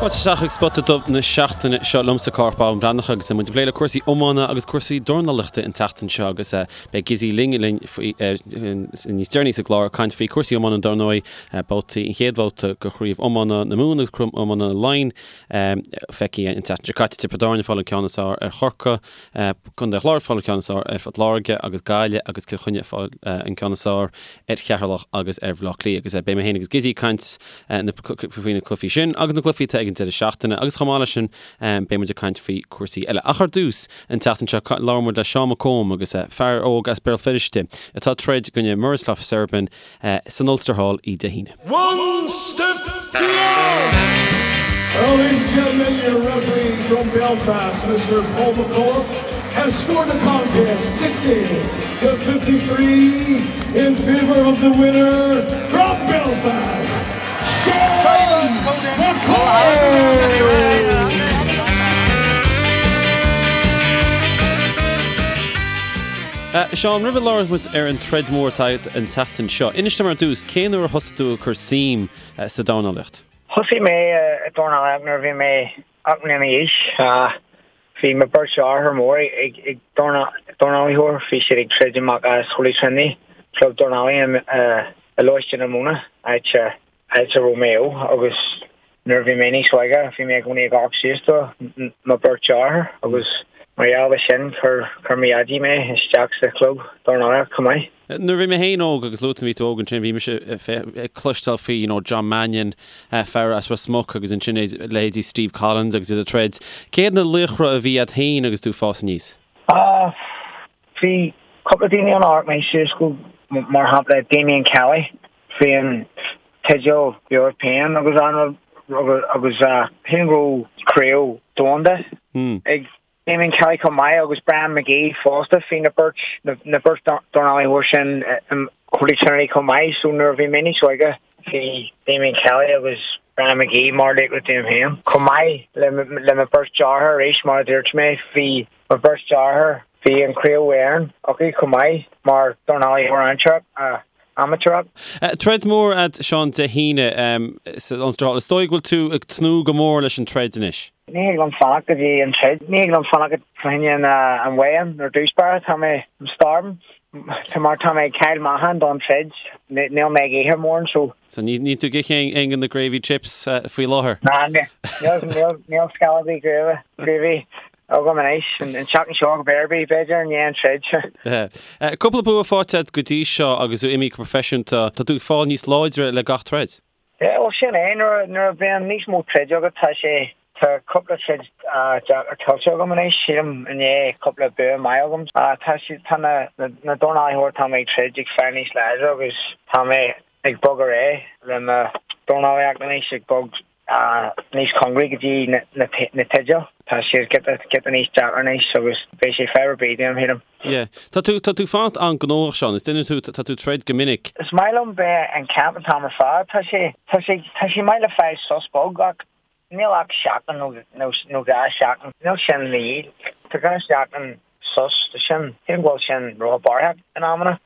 Fáilte isteach chuig Spota Dubh na seachtaine seo liomsa Cárthach Bán Breathnach agus muid ag plé le cúrsaí iomána agus cúrsaí dornálaíochta an tseachtain seo agus beidh Gizzy linn linn faoi níos deireanaí sa gclár ag caint faoi cúrsaí iomána dar ndóigh babhtaí an chéad bhabhta de chraobh iomána na Mumhan agus craobh iomána Laighean feicthe an tseachtain seo caite Tiobraid Árann ag fáil an ceann is fearr ar Chorcaigh Contae an Chláir ag fáil an ceann is fearr ar Phort Láirge agus Gaillimh agus Cill Chainnigh ag fáil an ceann is fearr ar Cheatharlach agus ar Bhaile Átha Cliath agus beidh mé féin agus Gizzy ag caint faoi na cluichí sin agus na cluichí atá ag an deireadh seachtaine agus chomh maith leis sin beidh muid ag caint faoi cúrsaí eile. Ach ar dtús, an tseachtain seo labhair muid le Seán McComb agus fear óg as Béal Feirste atá ag troid i gcoinne Miroslav Serban san Ulster Hall oíche Dé hAoine. One step beyond! Well, ladies and gentlemen, your referee from Belfast, Mr. Paul McCullough, has scored the contest 60 to 53 in favour of the winner from Belfast, Sean McComb! Seán, roimh a labhróidh muid ar an troid mhór atá agat an tseachtain seo, inis dom ar dtús, cén uair a thosaigh tú ag cur suim sa dornálaíocht? Thosaigh mé ag dornálaíocht nuair a bhí mé 8 mbliana d'aois. Bhí mo beirt deartháir mór ag dornálaíocht, bhí siad ag troid amach as Holy Trinity, club dornálaí i Lóiste na Móna, áit a raibh mé ó, agus nuair a bhí mé níos óige bhí mé i gcónaí ag amharc suas do mo beirt deartháir agus mar gheall ar sin chuir mo dhaidí mé isteach sa chlub dornálaíocht chomh maith. Nuair a bhí mé féin óg, agus luaigh tú bhí tú óg ansin, bhí mise ag cloisteáil faoi you know John Mannion, fear as Ros Muc agus ansin leithéidí Steve Collins agus iad ag troid. Cé hiad na laochra a bhí agat féin agus tú ag fás aníos? Ah, bhí cúpla daoine ann a amharc mé suas go, mar shampla Damien Kelly, bhí an teideal European agus an agus sílim go raibh craobh domhanda ag Damien Kelly chomh maith agus Brian McGee fosta, bhí na beirt, na beirt dornálaithe sin i Holy Trinity chomh maith so nuair a bhí mé níos óige bhí Damien Kelly agus Brian McGee mar laochra dom féin. Chomh maith le le mo beirt deartháir arís mar a dúirt mé bhí mo beirt deartháir, bhí an Craobh Éireann acu chomh maith mar dornálaithe amaitéarach. amaitéarach. Troid mhór agat Seán Dé hAoine san Ulster Hall. Is dóigh go bhfuil tú ag tnúth go mór leis an troid anois? Ní thig liom fanacht go dtí an troid. Ní thig liom fanacht fá choinne an weigh-in ar dtús báire. Tá mé, I'm starving. Tá mar tá mé ag cailleadh meáchan don troid. Níl mé ag ithe mórán so. So ní níl tú ag ithe aon de na gravy chips faoi láthair? Ná níl níl níl scamall ar bith gravy gravy agam anois. An tseachtain seo go b'fhéidir b'fhéidir i ndiaidh an troid. Cúpla bua faighte agat go dtí seo agus tú imithe go proifisiúnta. Tá tú ag fáil níos láidre le gach troid. Yeah, bhuel sin é, nuair, nuair a bhíonn níos mó troid agat tá sé, tá cúpla troid deacair tuillte agam anois, sílim i ndiaidh cúpla bua maith agam. Tá siad, tá na, na, na dornálaithe atá mé ag troid ag fáil níos láidre agus tá mé ag bog ar aghaidh le mo dornálaíocht anois, ag bog níos cóngaraí go dtí na, na, na teidil. Tá siad giota, giota níos deacra anois agus beidh sé fadhb ar bith dom, sílim. Yeah. Tá tú, tá tú fanacht an-ghnóthach, Seán. Is duine tú, tá tú ag troid go minic. Is maith liom bheith in camp an t-am ar fad. Tá sé, tá sé, tá sé maith le fáil sos beag ach níl ach seachtain nó, nó, nó 2 seachtain. Níl sin le dhíth. Tá 2 seachtain sos, tá sin, sílim go bhfuil sin róthapaidh in amanna.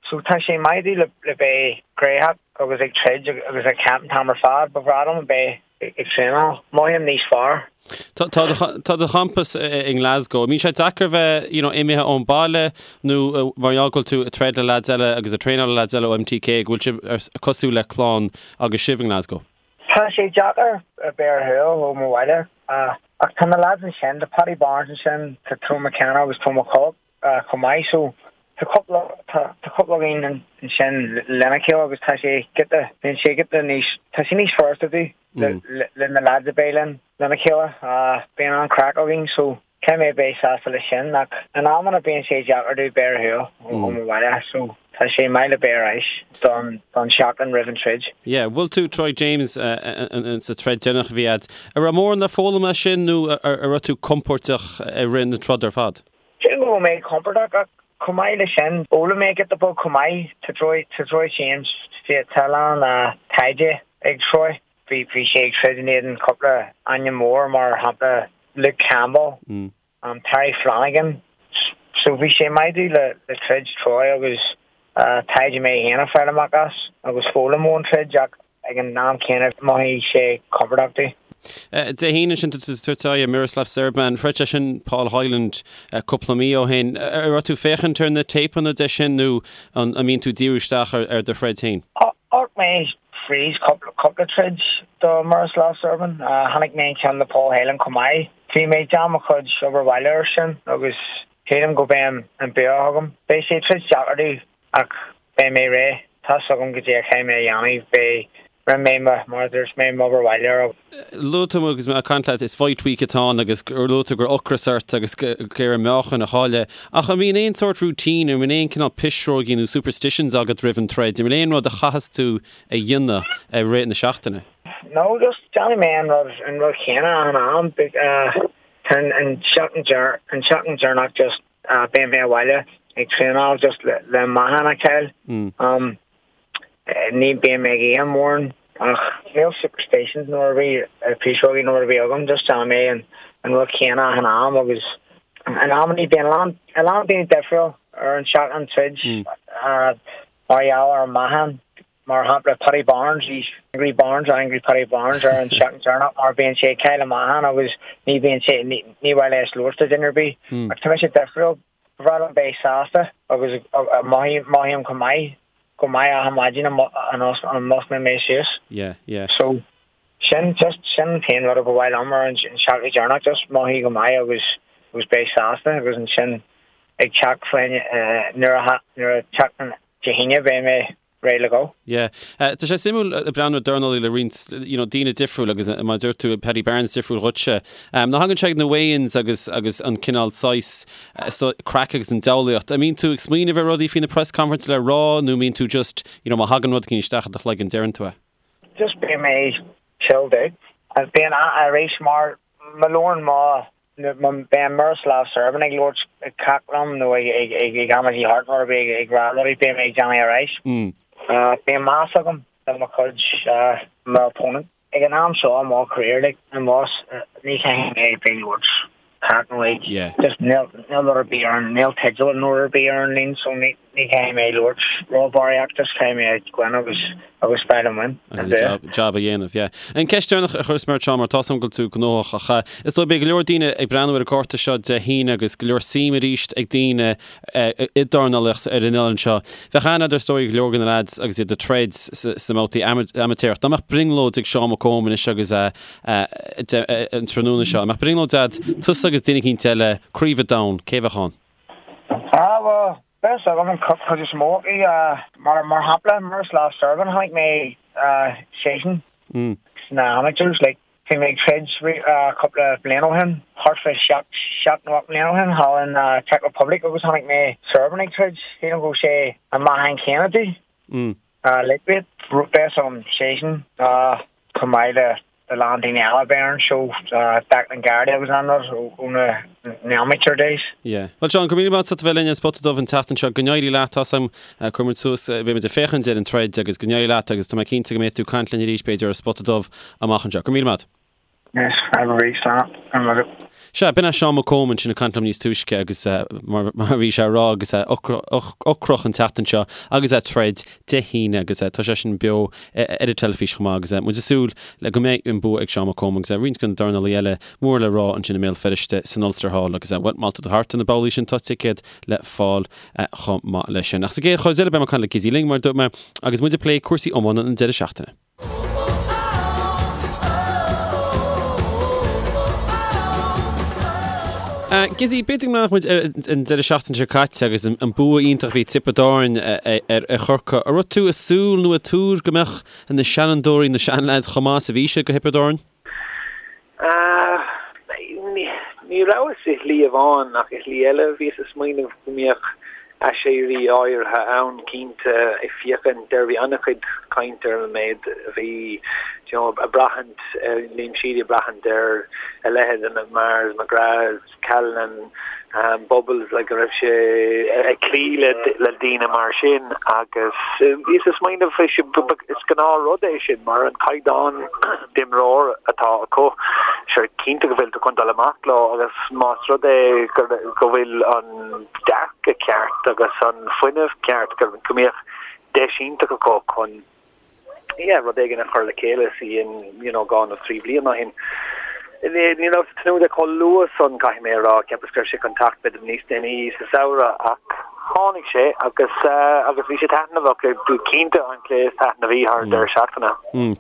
So tá sé maith domh le, le bheith gnoitheach agus ag troid agus ag camp an t-am ar fad. Ba bhreá liom a bheith ag traenáil. Mothaím níos fearr. Tá, tá do, tá do champas i nGlasgow. An mbíonn sé deacair bheith, you know, imithe ón baile nó mar gheall go bhfuil tú ag troid le lads eile agus ag traenáil le lads eile ó MTK go bhfuil sibh cosúil le clann agus sibh i nGlasgow? Tá sé deacair a bheith ar shiúl ó mo bhaile ach tá na lads ansin, tá Paddy Barnes ansin, tá Tony McKenna agus Tom McCulloch chomh maith so tá cúpla, tá cúpla againn ansin lena chéile agus tá sé giota, bíonn sé giota níos, tá sé níos furasta domh le na lads a bheith linn lena chéile. Bíonn an-chraic againn so caithfidh mé bheith sásta leis sin ach in amanna bíonn sé deacair domh bheith ar shiúl ó mo bhaile so tá sé maith le bheith ar ais don don seachtain roimh an troid. Yeah, bhuail tú Troy James sa troid deireanach a bhí agat. An raibh mórán le foghlaim as sin nó an raibh tú compordach i rith na troda ar fad? Sílim go raibh mé compordach ach chomh maith leis sin, d'fhoghlaim mé giota beag chomh maith. Tá Troy, tá Troy James, tá a lán taighde ag Troy. Bhí, bhí sé ag troid in éadan cúpla ainm mór mar shampla Luke Campbell, Terry Flanagan. So bhí sé maith domh le, le troid Troy agus taighde mé féin a fáil amach as agus foghlaim ón troid ach ag an am céanna mhothaigh sé compordach domh. Dé hAoine sin tá tú ag tabhairt aghaidh ar Miroslav Serban. Throid sé sin Paul Hyland cúpla mí ó shin. An raibh tú ag féachaint ar na téipeanna de sin nó an mbíonn tú ag díriú isteach ar do throid féin? Amharc mé fríd cúpla troid do Miroslav Serban. Chonaic mé an ceann le Paul Hyland chomh maith. Bhí mé ag déanamh mo chuid obair bhaile air sin agus sílim go mbeidh an bua agam. Beidh sé troid deacair domh ach beidh mé réidh. Tá's agam goidé a chaithfidh mé a dhéanamh. Beidh, rinne mé mo, mar a dúirt mé, m'obair bhaile air. Luaigh tú agus mé ag caint leat, is fight week atá ann agus gur luaigh tú go raibh ocras ort agus ag iarraidh meáchan a chailleadh. Ach an mbíonn aon sórt routine, an mbíonn aon cineál pisreogaí nó superstitions agat roimh an troid? An bhfuil aon rud a chaitheas tú a dhéanamh i rith na seachtaine? No, just déanfaidh mé an rud, an rud chéanna achan am. Tá an tseachtain an tseachtain deireanach just beidh mé abhaile ag traenáil just le le meáchan a chaill. Ní bíonn mé ag ithe mórán ach níl superstitions nó ar bith, pisreogaí nó ar bith agam, just déanfaidh mé an an rud chéanna achan am agus in amannaí bíonn a lán a lán daoine difriúil ar an seachtain troid mar gheall ar an meáchan. Mar shampla, Paddy Barnes, he's Angry Barnes or Angry Paddy Barnes ar an seachtain deireanach mar bíonn sé ag cailleadh meáchan agus ní bhíonn sé, ní mhaith leis labhairt le duine ar bith. Ach tá mise difriúil, ba bhreá liom bheith sásta agus mothaím go maith, go maith achan maidin a mosclaíonn mé suas. Yeah, yeah. So, sin, just, sin an t-aon rud a ba mhaith liom ar an seachtain deireanach, just mothaí go maith agus, agus beith sásta agus ansin ag teacht faoin, nuair a, nuair a teacht an Dé hAoine beidh mé réidh le go. Yeah. Tá sé suimiúil ag breathnú ar dornálaí le roinnt you know daoine difriúil agus mar a dúirt tú Paddy Barnes difriúil dhuitse. Nuair a thagann sé ag na weigh-ins agus agus an cineál saghas so craic agus an diabhlaíocht, an mbíonn tú ag smaoineamh ar rudaí faoi na press conference le rá nó mbíonn tú just you know má thagann rud éigin isteach i do chloigeann deireann tú é? Just beidh mé chilled out. Bíonn arís mar má labhrann mo Beidh Miroslav Serban ag labhairt ag cac liom nó ag ag amaidí thart nó ar bith ag rá rudaí beidh mé ag déanamh ar ais. Bíonn meas agam do mo chuid mo opponent. Ag an am seo i mo career like i mo ní chaithfidh mé bheith ag labhairt cac nó ag just níl rud ar bith ar an níl teideal nó rud ar bith ar an líne so ní Ní chaithfidh mé labhairt ró-bharraíocht, just caithfidh mé goil agus agus fáil an win. Agus an job, job a dhéanamh, yeah. An ceist deireanach a chuirfeas mé ort Seán, mar tá's agam go bhfuil tú gnóthach, ach is dóigh beidh go leor daoine ag breathnú ar an gcárta seo Dé hAoine agus go leor suim arís ag daoine i dornálaíocht ar an oileán seo. Bheadh aithne agat is dóigh go leor de na lads agus iad ag troid sna mbabhtaí amaitéarach. Dá mbeadh brionglóid ag Seán Mac Cóim anois agus an tráthnóna seo, an mbeadh brionglóid agat, tusa agus duine eicínt eile, Craobh an Domhain, cé bheadh ann? Ah, bhuel, beidh a fhios agam an chuid is mó acu. Mar mar shampla, Miroslav Serban, chonaic mé seisean sna amateurs, like, bhí mé ag troid cúpla bliain ó shin, thart fá sheacht, seacht nó ocht mbliana ó shin, thall in Czech Republic agus chonaic mé Serban ag troid, sílim go raibh sé an meáchan céanna domh, lightweight, beidh a fhios agam seisean, chomh maith le a lán daoine eile a bheidh ar an seó, Declan Geraghty agus an rud ó na amateur days. Yeah. Bhuel Seán, go raibh míle maith agat as a bheith linn ar An Spota Dubh an tseachtain seo. Go n-éirí leat, tá's agam, cuirfidh muid suas, beidh muid ag féachaint ar an troid agus go n-éirí leat agus tá mé cinnte go mbeidh tú ag caint linn arís b'fhéidir ar An Spota Dubh amach anseo. Go raibh míle maith. Yes, have a great slán. Go raibh maith agat. Sea, b'in é Seán Mac Cóim ansin ag caint liom níos túisce agus mar a bhí sé a rá agus é ocrach an tseachtain seo agus é ag troid Dé hAoine agus tá sé sin beo ar an teilifís chomh maith agus muid ag súil le go mbeidh an bua ag Seán Mac Cóim agus roinnt de na dornálaithe eile mór le rá ansin i mBéal Feirste san Ulster Hall agus bhuel má tá tú thart ar na babhlaí sin tá ticéad le fáil chomh maith leis sin. Ach sa gcéad chuid eile beidh mé ag caint le Gizzy Ling mar a dúirt mé agus muid ag plé cúrsaí iomána an deireadh seachtaine. Gizzy, b'fhéidir go mbeadh muid ar an deireadh seachtaine seo caite agus an bua iontach a bhí ag Tiobraid Árann ar Chorcaigh. An raibh tú ag súil nó ag tuar go mbeadh na seanfhondúirí, na seanleaids chomh maith is a bhí siad do Thiobraid Árann? Ní rabhas i shlí amháin ach i shlí eile. Bhíos ag smaoineamh go mbeadh aiséirí áirithe ann cinnte ag féachaint ar, bhí an-chuid cainte ar an méid a bhí you know ag braithint, Liam Sheedy ag braithint ar a leithéid de na Mahers, McGraths, Callanan, Bubbles, like go raibh sé ag cloí le le daoine mar sin agus bhíos ag smaoineamh is gnáthrud é sin mar an caighdeán d'imreoir atá acu, sure cinnte go bhfuil tú chun dul amach leo agus más rud é go bhfuil an dearcadh ceart agus an fuinneamh ceart go mbeadh deis iontach acu chun yeah, rud éigin a chur le chéile sa you know, 2 nó 3 bhliain ó shin. Ní rabhas ag tnúth le chomh luath san, caithfidh mé a rá. Cheapas go raibh sé chun teacht b'fhéidir níos déanaí sa samhradh ach tháinig sé agus agus bhí sé taitneamhach, cinnte an cluiche is taitneamhaí thar an deireadh seachtaine.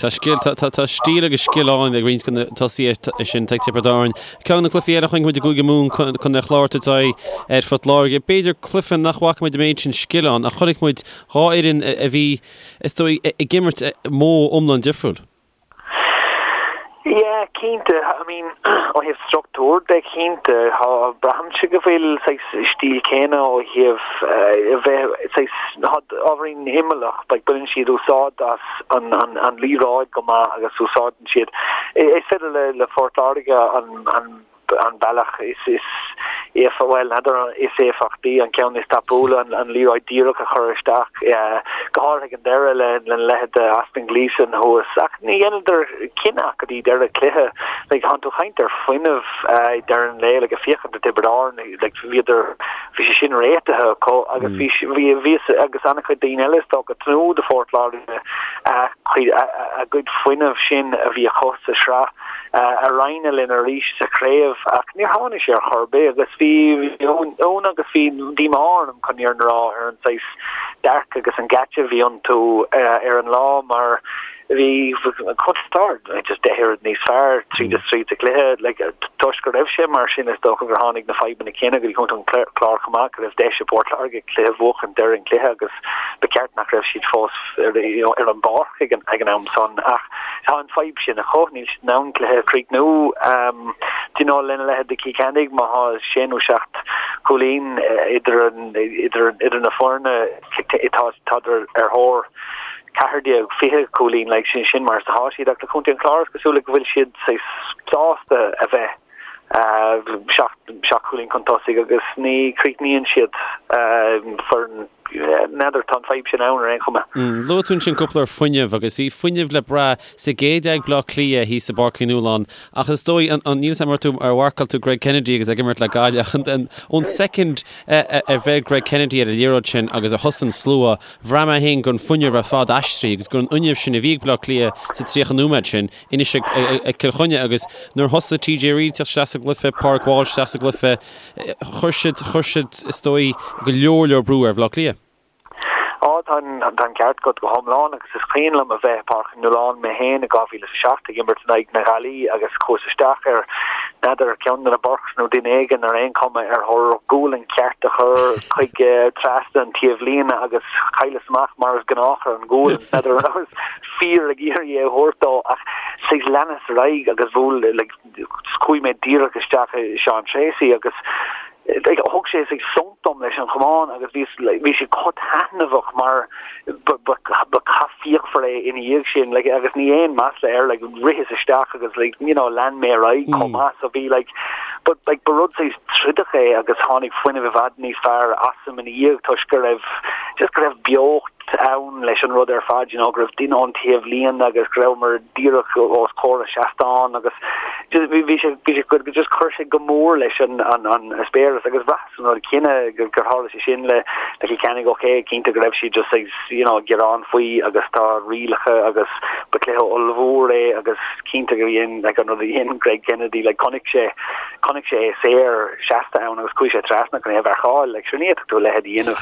Tá scil, tá stíl agus scil ann ag roinnt de na tosaithe sin ag Tiobraid Árann. Ceann de na cluichí eile a chonaic muid i gCúige Mumhan, Contae an Chláir ag tabhairt aghaidh ar Phort Láirge. B'fhéidir cluiche nach bhfaca muid an méid sin scil ann ach chonaic muid dhá fhoireann a bhí, is dóigh, ag imirt modh iomlán difriúil. Yeah, cinnte. I mean, ó thaobh struchtúr de, cinnte. Tá, braithimse go bhfuil saghas stíl céanna ó thaobh a bheith saghas, tá ábhairín imeallach, like baineann siad úsáid as an, an, an liathróid go maith agus úsáideann siad, is féidir le, le Phort Láirge an, an, an bealach is bhuel, n'fheadar is éifeachtaí, an ceann is tapúla, an liathróid díreach a chur isteach, go háirithe ag an deireadh lena leithéid de Austin Gleeson thuas. Ach ní dheineadar cinneadh go dtí deireadh cluiche. Like, tánn tú ag caint ar fuinneamh ag deireadh an lae, like, ag féachaint ar Tiobraid Árann, like, bhíodar, bhí sé sin réitithe acu agus bhí, bhí, bhíos agus an-chuid daoine eile is dócha ag tnúth do Phort Láirge a gcuid fuinnimh sin a bhí acu sa sraith. a roinnt linn arís sa chraobh ach níor tháinig sé ar chor ar bith agus bhí ionadh agus bhí díomá orm chun an fhírinne a rá ar an saghas dearcadh agus an geáitse a bhí iontu ar an lá mar bhí Contae an Chláir just deich oiread níos fearr tríd is tríd sa chluiche. Like, toisc go raibh sé mar sin is dócha gur tháinig na fadhbanna céanna go dtí Contae an Chláir chomh maith go raibh deis ag Port Láirge cluiche a bhuachan deireadh an chluiche agus ba cheart nach raibh siad fós ar, you know, ar an bpáirc ag an, ag an am san ach tá an fadhb sin acu, níl siad in ann cluiche a chríochnú. Do you know, lena leithéid de Cill Chainnigh, má tá sé nó seacht cúilín idir, idir, idir na foirne, tá, tádar ar thóir 14, 20 cúilín, like, sin, sin mar is atá siad ach le Contae an Chláir is cosúil go bhfuil siad sásta a bheith 7 cúilín chun tosaigh agus ní chríochnaíonn siad foireann n'fheadar, tá an fadhb sin ann ar aon chuma. Luaigh tú ansin cúpla uair fuinneamh agus bhí fuinneamh le brath sa gcéad leath ag Bleá Cliath thíos i bPáirc Uí Nualláin ach is dóigh, níl 'fhios a'm ar tú ar mharcáil tú Greg Kennedy agus é ag imirt le Gaillimh ach ón soicind a bheir Greg Kennedy ar an liathróid sin agus a thosaigh an slua, bhraith mé féin go raibh an fuinneamh ar fad aistrithe agus go raibh an fhuinneamh sin a bhí ag Bleá Cliath sa 30 nóiméad sin anois ag Cill Chainnigh agus nuair a thosaigh TJ Reid teacht isteach sa gcluiche, Pádraig Walsh isteach sa gcluiche, chuir siad, chuir siad, is dóigh, go leor leor brú ar Bhaile Átha Cliath. Á, tá an, tá an ceart agat go hiomlán agus is cuimhin liom a bheith i Páirc Uí Nualláin mé féin i 2007 ag imirt in aghaidh na Gaillimhe agus chuas isteach ar, n'fheadar, ceann de na Burkes nó duine éigin ar aon chuma ar thóir gualainn cheart a chur chuig trasna an taobhlíne agus chailleas amach mar is gnách ar an ghualainn, n'fheadar an rabhas fíor ag iarraidh é a thabhairt dó ach saghas leanas ar aghaidh agus bhuail like chuaigh mé díreach isteach i Seán Treacy agus like thug sé saghas sonc dom leis an chamán agus bhí like bhí sé chomh taitneamhach mar ba ba ba cath fíochmhar é ina dhiaidh sin like agus ní aon masla air like ritheas isteach agus like you know lean mé ar aghaidh chomh maith so bhí like but like ba rud saghas trodach é agus tháinig fuinneamh i bhfad níos fearr asam ina dhiaidh toisc go raibh just go raibh beocht ann leis an rud ar fad, you know, go raibh duine ón taobhlíne agus go rabhamar díreach os comhair an seastán agus just bhí bhí sé bhí sé go just chuir sé go mór leis an an an eispéireas agus bhraitheas an rud céanna gur gur tharla sé sin le le Cill Chainnigh ok cinnte go raibh siad just saghas you know gearán faoi agus tá rialacha agus ba cluiche ollmhór é agus cinnte gur dhein like an rud a dhein Greg Kennedy like chonaic sé chonaic sé é saor seasta ann agus chuaigh sé trasna chun é a mharcáil like sure ní fhéadfadh tú a leithéid a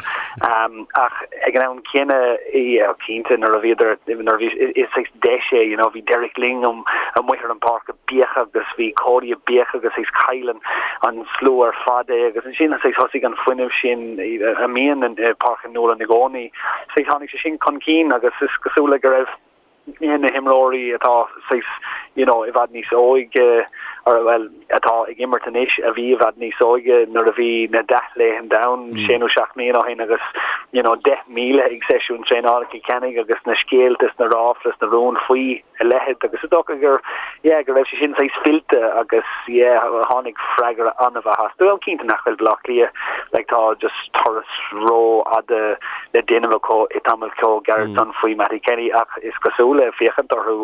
dhéanamh Ach ag an am céanna, yeah, cinnte, nuair a bhíodar, nuair a bhí, is saghas deis é, you know, bhí Derek Lyng amuigh ar an bpáirc ag béiceadh agus bhí Cody ag béiceadh agus saghas chaill an, an slua ar fad é agus ansin saghas thosaigh an fuinneamh sin a mbíonn i Páirc Uí Nualláin i gcónaí, saghas tháinig sé sin chun cinn agus is cosúil le go raibh, na himreoirí atá saghas you know i bhfad níos óige or bhuel atá ag imirt anois a bhí i bhfad níos óige nuair a bhí na dea-laethanta ann sé nó seacht mbliana ó shin agus you know 10,000 ag seisiún traenála Chill Chainnigh agus na scéalta is na ráflaí is na rúin faoi a leithéid agus is dócha gur yeah go raibh sé sin saghas fillte agus yeah tháinig freagra an-mhaith astu. Bhuel cinnte nach bhfuil Baile Átha Cliath like tá just turas rófhada le déanamh acu i tamall chomh gairid san faoi Mattie Kenny ach is cosúil le féachaint orthu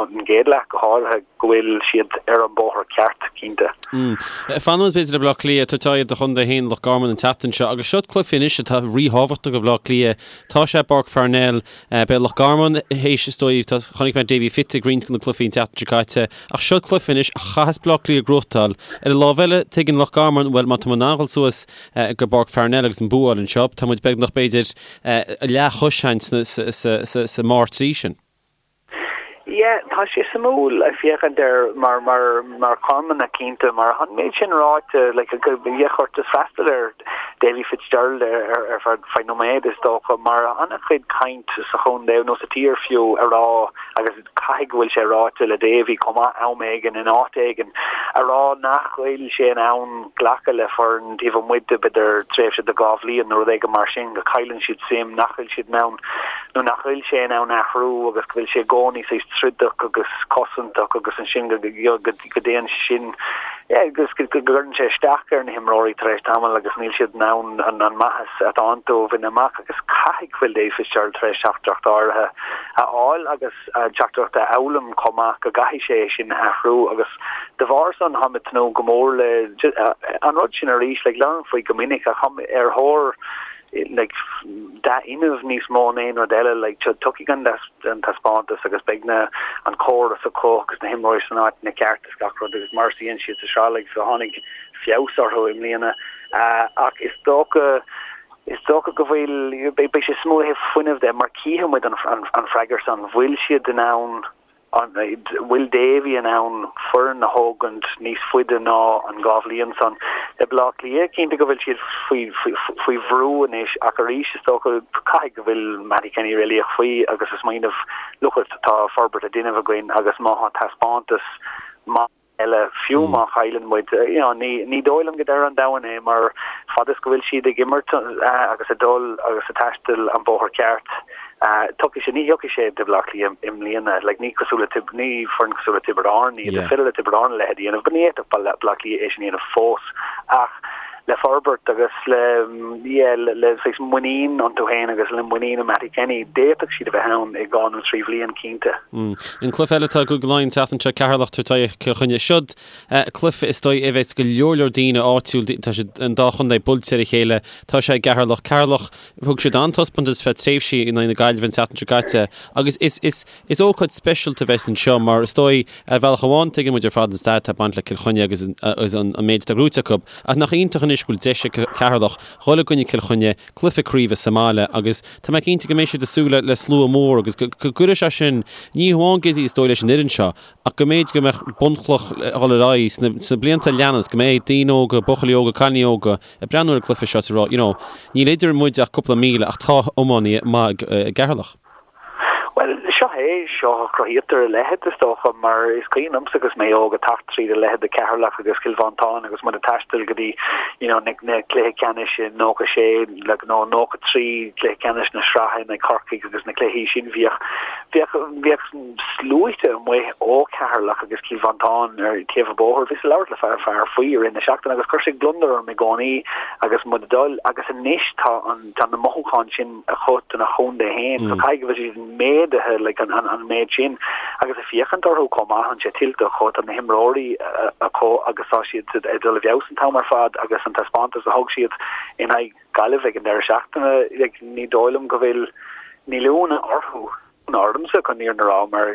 an gcéad leath go háirithe go bhfuil siad ar an bóthar ceart cinnte. Fanfaidh muid b'fhéidir le Baile Átha Cliath, tabhairt aghaidh ar do chontae féin Loch Garman an tseachtain seo agus seo cluiche anois atá ríthábhachtach do Bhaile Átha Cliath. Tá sé i bPáirc Pharnell. Beidh Loch Garman théis is dóigh, chonaic mé Davy Fitz. faighte ag roinnt de na cluichí an tseachtain seo caite ach seo cluiche anois a chaithfeas Bleá Cliath a ghnóthachtáil. Ar an lámh eile, tuigeann Loch Garman, bhuel, má tá muid in ann dhul suas go bPáirc Pharnell agus an bua a fháil anseo, tá muid beagnach, b'fhéidir, leathchois sa mbarr 3 sin. Yeah, tá sé suimiúil ag féachaint air mar mar mar Charmanach cinnte mar an méid sin ráite like go bheadh ort just freastal ar Davy Fitzgerald ar ar feadh feadh nóiméad is dócha mar an-chuid caint sa chontae nó sa tír fiú a rá agus caithfidh go bhfuil sé ráite le Davy chomh maith am éigin in áit éigin a rá nach bhfuil sé in ann glacadh le foireann taobh amuigh de b'fhéidir tréimhse de 2 bhliain nó rud éigin mar sin go cailleann siad suim nach bhfuil siad in ann nó nach bhfuil sé in ann athrú agus go bhfuil sé i gcónaí saghas troideach agus cosantach agus ansin go go dtéann sin agus go gcuireann sé isteach ar na himreoirí tar éis tamaill agus níl siad in ann an maitheas atá iontu a bhaint amach agus caithfidh go bhfuil Dave Fitzgerald tar éis teachtaireacht áirithe a fháil agus teachtaireacht a fhoghlaim chomh maith go gcaithfidh sé é sin a athrú agus de bharr san táim ag tnúth go mór le an rud sin arís like labhraím faoi go minic ach táim ar thóir like dea-fhuinneamh níos mó ná aon rud eile like tiocfaidh an an taispeántas agus beidh na an córas acu agus na himreoirí san áiteanna ceart is gach rud agus mar is a dhein siad sa sraith like so tháinig feabhas orthu i mbliana ach is dócha is dócha go bhfuil beidh sé suimiúil ó thaobh fuinnimh de mar cífidh muid an an freagairt san bhfuil siad in ann An bhfuil Davy in ann foireann a thógaint níos faide ná an 2 bhliain san? Le Baile Átha Cliath, cinnte go bhfuil siad faoi bhrú anois ach arís is dócha caithfidh go bhfuil Mattie Kenny réalaíoch faoi agus ag smaoineamh look it tá forbairt á déanamh againn agus má tá taispeántas maith eile, fiú má chailleann muid. You know, ní, ní dóigh liom go deireadh an domhain é mar fad is go bhfuil siad ag imirt agus ag dul agus ag taisteal an bóthar ceart, tiocfaidh sé, ní thiocfaidh sé do Bhaile Átha Cliath i mbliana. Like, ní cosúil le Tib, ní foireann cosúil le Tiobraid Árann iad, is féidir le Tiobraid Árann a leithéid a dhéanamh, but ní fhéadfadh Baile Átha Cliath é sin a dhéanamh fós. Ach le forbairt agus le, yeah, le, le saghas muinín iontu féin agus le muinín i Mattie Kenny, d'fhéadfadh siad a bheith ann i dhá nó trí bhliain, cinnte. An cluiche eile atá i gCúige Laighean an tseachtain seo, Ceatharlach ag tabhairt aghaidh Cill Chainnigh. Siod cluiche is dóigh a bheas go leor leor daoine áitiúil, tá siad an dá chontae buailte ar a chéile, tá sé i gCeatharlach. Ceatharlach, thug siad an-taispeántas feadh tréimhsí in aghaidh na Gaillimhe an tseachtain seo caite agus is, is, is ócáid speisialta a bheas anseo mar is dóigh ar bhealach amháin tuigeann muid ar fad an stair atá ag baint le Cill Chainnigh agus agus an méid atá gnóite acu ach nach iontach anois go bhfuil deis ag Ceatharlach dhul i gcoinne Cill Chainnigh, cluiche craoibhe sa mbaile agus tá mé cinnte go mbeidh siad ag súil le slua mór agus go gcuirfidh sé sin, ní hamháin Gizzy is dóigh leis an fhoireann seo, ach go mb'fhéidir go mbeadh bunchloch a dhul ar aghaidh sna blianta a leanas, go mbeidh daoine óga, buachaillí óga, cailíní óga ag breathnú ar an gcluiche seo is ag rá, you know, níl idir muid ach cúpla míle ach tá iománaithe maith i gCeatharlach. Bhuel, seo é, seo a chruthaítear a leithéid, is dócha, mar is cuimhin liomsa agus mé óg ag teacht tríd a leithéid de Cheatharlach agus Cill Mhantáin agus muid ag taisteal go dtí, you know, na, na cluiche ceannais i 96, like, nó 93, cluiche ceannais na sraithe in aghaidh Corcaigh agus na cluichí sin, bhíodh, bhíodh, bhíodh sluaite amuigh ó Cheatharlach agus Cill Mhantáin ar taobh an bhóthair. Bhíos ag labhairt le fear, fear faoi i rith na seachtaine agus chuir sé gliondar orm i gcónaí agus muid ag dul agus anois tá an, tá na mothúcháin sin acu dona chontae féin. So caithfidh go bhfuil siad méadaithe like an an méid sin agus ag féachaint orthu chomh maith tá sé tuillte acu tá na himreoirí acu agus tá siad ag dul i bhfeabhas an t-am ar fad agus an taispeántas a thug siad in aghaidh Gaillimh ag an deireadh seachtaine like ní dóigh liom go bhfuil níl ionadh orthu ormsa chun an fhírinne a rá mar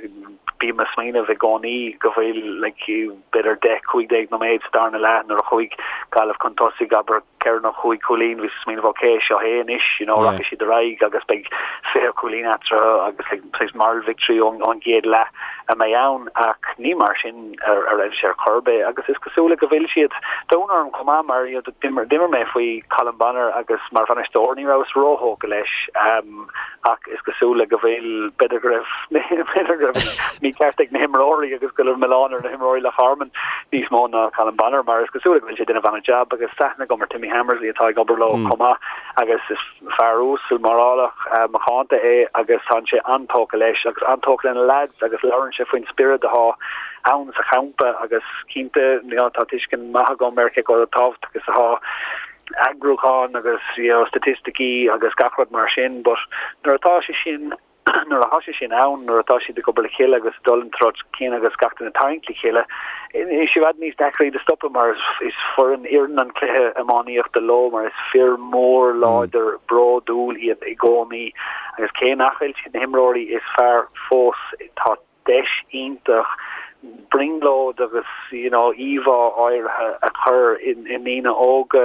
bím ag smaoineamh i gcónaí go bhfuil like b'fhéidir 10, 15 nóiméad sa darna leath nuair a chuaigh Gaillimh chun tosaigh abair ceithre nó chúig chúilín bhíos ag smaoineamh ok seo é anois you know rachaidh siad ar aghaidh agus beidh 20 cúilín eatarthu agus like saghas moral victory ón ón gcéad leath a mbeidh ann ach ní mar sin a a raibh sé ar chor ar bith agus is cosúil go bhfuil siad tá ionadh orm chomh maith mar you know d'imir d'imir mé faoi Colm Bonnar agus mar bhainisteoir ní rabhas róthógtha leis um ach is cosúil le go bhfuil, b'fhéidir go raibh, b'fhéidir go raibh an mícheart ag na himreoirí agus go raibh milleán ar na himreoirí Loch Garman níos mó ná Colm Bonnar mar is cosúil le go bhfuil sé ag déanamh an-jab agus tá aithne agam ar Timmy Hammersley atá ag obair leo chomh maith agus is fear uasal morálach macánta é agus tá sé an-tógtha leis agus an-tógtha lena leaids agus labhrann sé faoin spiorad atá ann sa champa agus cinnte you know, tá tuiscint maith agam ar cé chomh tábhachtach is atá eagrúchán agus you know staitisticí agus gach rud mar sin but nuair atá sé sin nuair atá sé sin ann, nuair atá siad ag obair le chéile agus ag dul an treo céanna agus gach duine ag tarraingt le chéile, is i bhfad níos deacra iad a stopadh mar is foireann oireann an cluiche iománaíochta leo mar is fir mór láidir bródúil iad i gcónaí agus cé nach bhfuil siad na himreoirí is fearr fós tá. deis iontach brionglóid agus you know íomhá áirithe a chur i ndaoine óga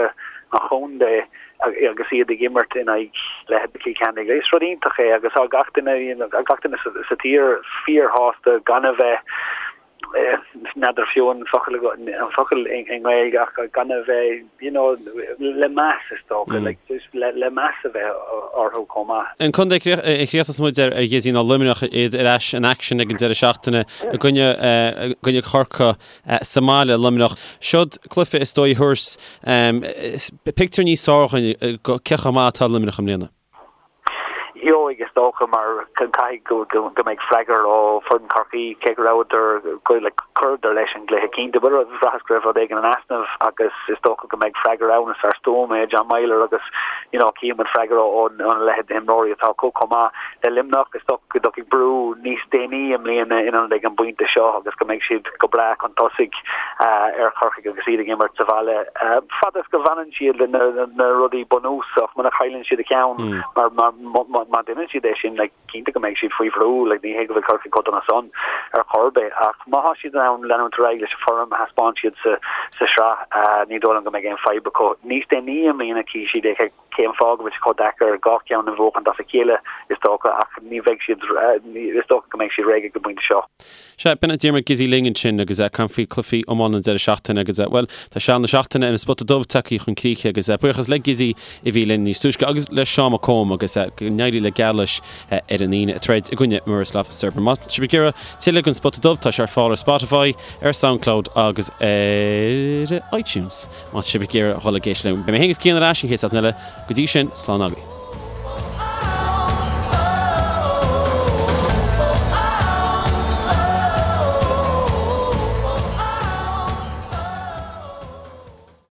an chontae agus iad ag imirt in aghaidh leithéid Chill Chainnigh. Is rud iontach é agus tá gach duine you know gach duine sa tír fíorshásta gan a bheith n'fheadar fiú an focal an focal i nGaeilge ach gan a bheith you know le meas is dócha like just le le meas a bheith orthu chomh maith. An contae a chríochnós muid air a Ghizzy ná Luimneach iad ar ais in action ag an deireadh seachtaine i gcoinne i gcoinne Chorcaí sa mbaile Luimneach. Seod cluiche is dóigh a thabharfas pictiúr níos fearr dhúinn go cé chomh maith atá Luimneach i mbliana. Gheobhaidh, is dócha, mar caithfidh go mbeidh freagra ó foireann Chorcaí, cé go rabhadar, chuireadar leis an gcluiche cinnte, but bhraitheas go raibh rud éigin in easnamh agus is dócha go mbeidh freagra ann. Is fear stuama é John Meyler agus you know chífidh muid freagra óna leithéid d'imreoirí atá acu chomh maith le Luimneach. Is dócha go dtiocfaidh brú níos déanaí i mbliana in ionad ag an bpointe seo agus go mbeidh siad go breá chun tosaigh ar Chorcaigh agus iad ag imirt sa bhaile. Fad is go bhfanann siad le na rudaí bunúsach, muna chailleann siad a cheann, mar má deineann siad é sin, like, cinnte go mbeidh siad faoi bhrú, like, ní hé go bhfuil Corcaigh chomh dona san ar chor ar bith, ach má thá siad in ann leanúint ar aghaidh leis an form a thaispeáin siad sa sa sraith, ní dóigh liom go mbeidh aon fadhb acu. Níos déanaí i mbliana chífidh siad é cén fáth go bhfuil sé chomh deacair dhá cheann a bhuachaint as a chéile, is dócha, ach ní bheidh siad, is dócha go mbeidh siad réidh ag an bpointe seo. Sea, b'in é Diarmuid Gizzy linn ansin agus ag caint faoi cluichí iomána an deireadh seachtaine agus, bhuel, tá seal na seachtaine ar an Spota Dubh tagtha chun críche agus buíochas le Gizzy a bhí linn níos túisce agus le Seán Mac Cóim agus go n-éirí le Geamhla ar an Aoine ag troid i gcoinne Miroslav Cirber. Má tá sibh ag iarraidh tuilleadh den Spota Dubh tá sé ar fáil ar Spotify, ar Soundcloud agus ar iTunes. Má tá sibh ag iarraidh dhul ag éisteacht linn. Beidh mé féin agus Cian ar ais an chéad seachtain eile. Go dtí sin, slán agaibh.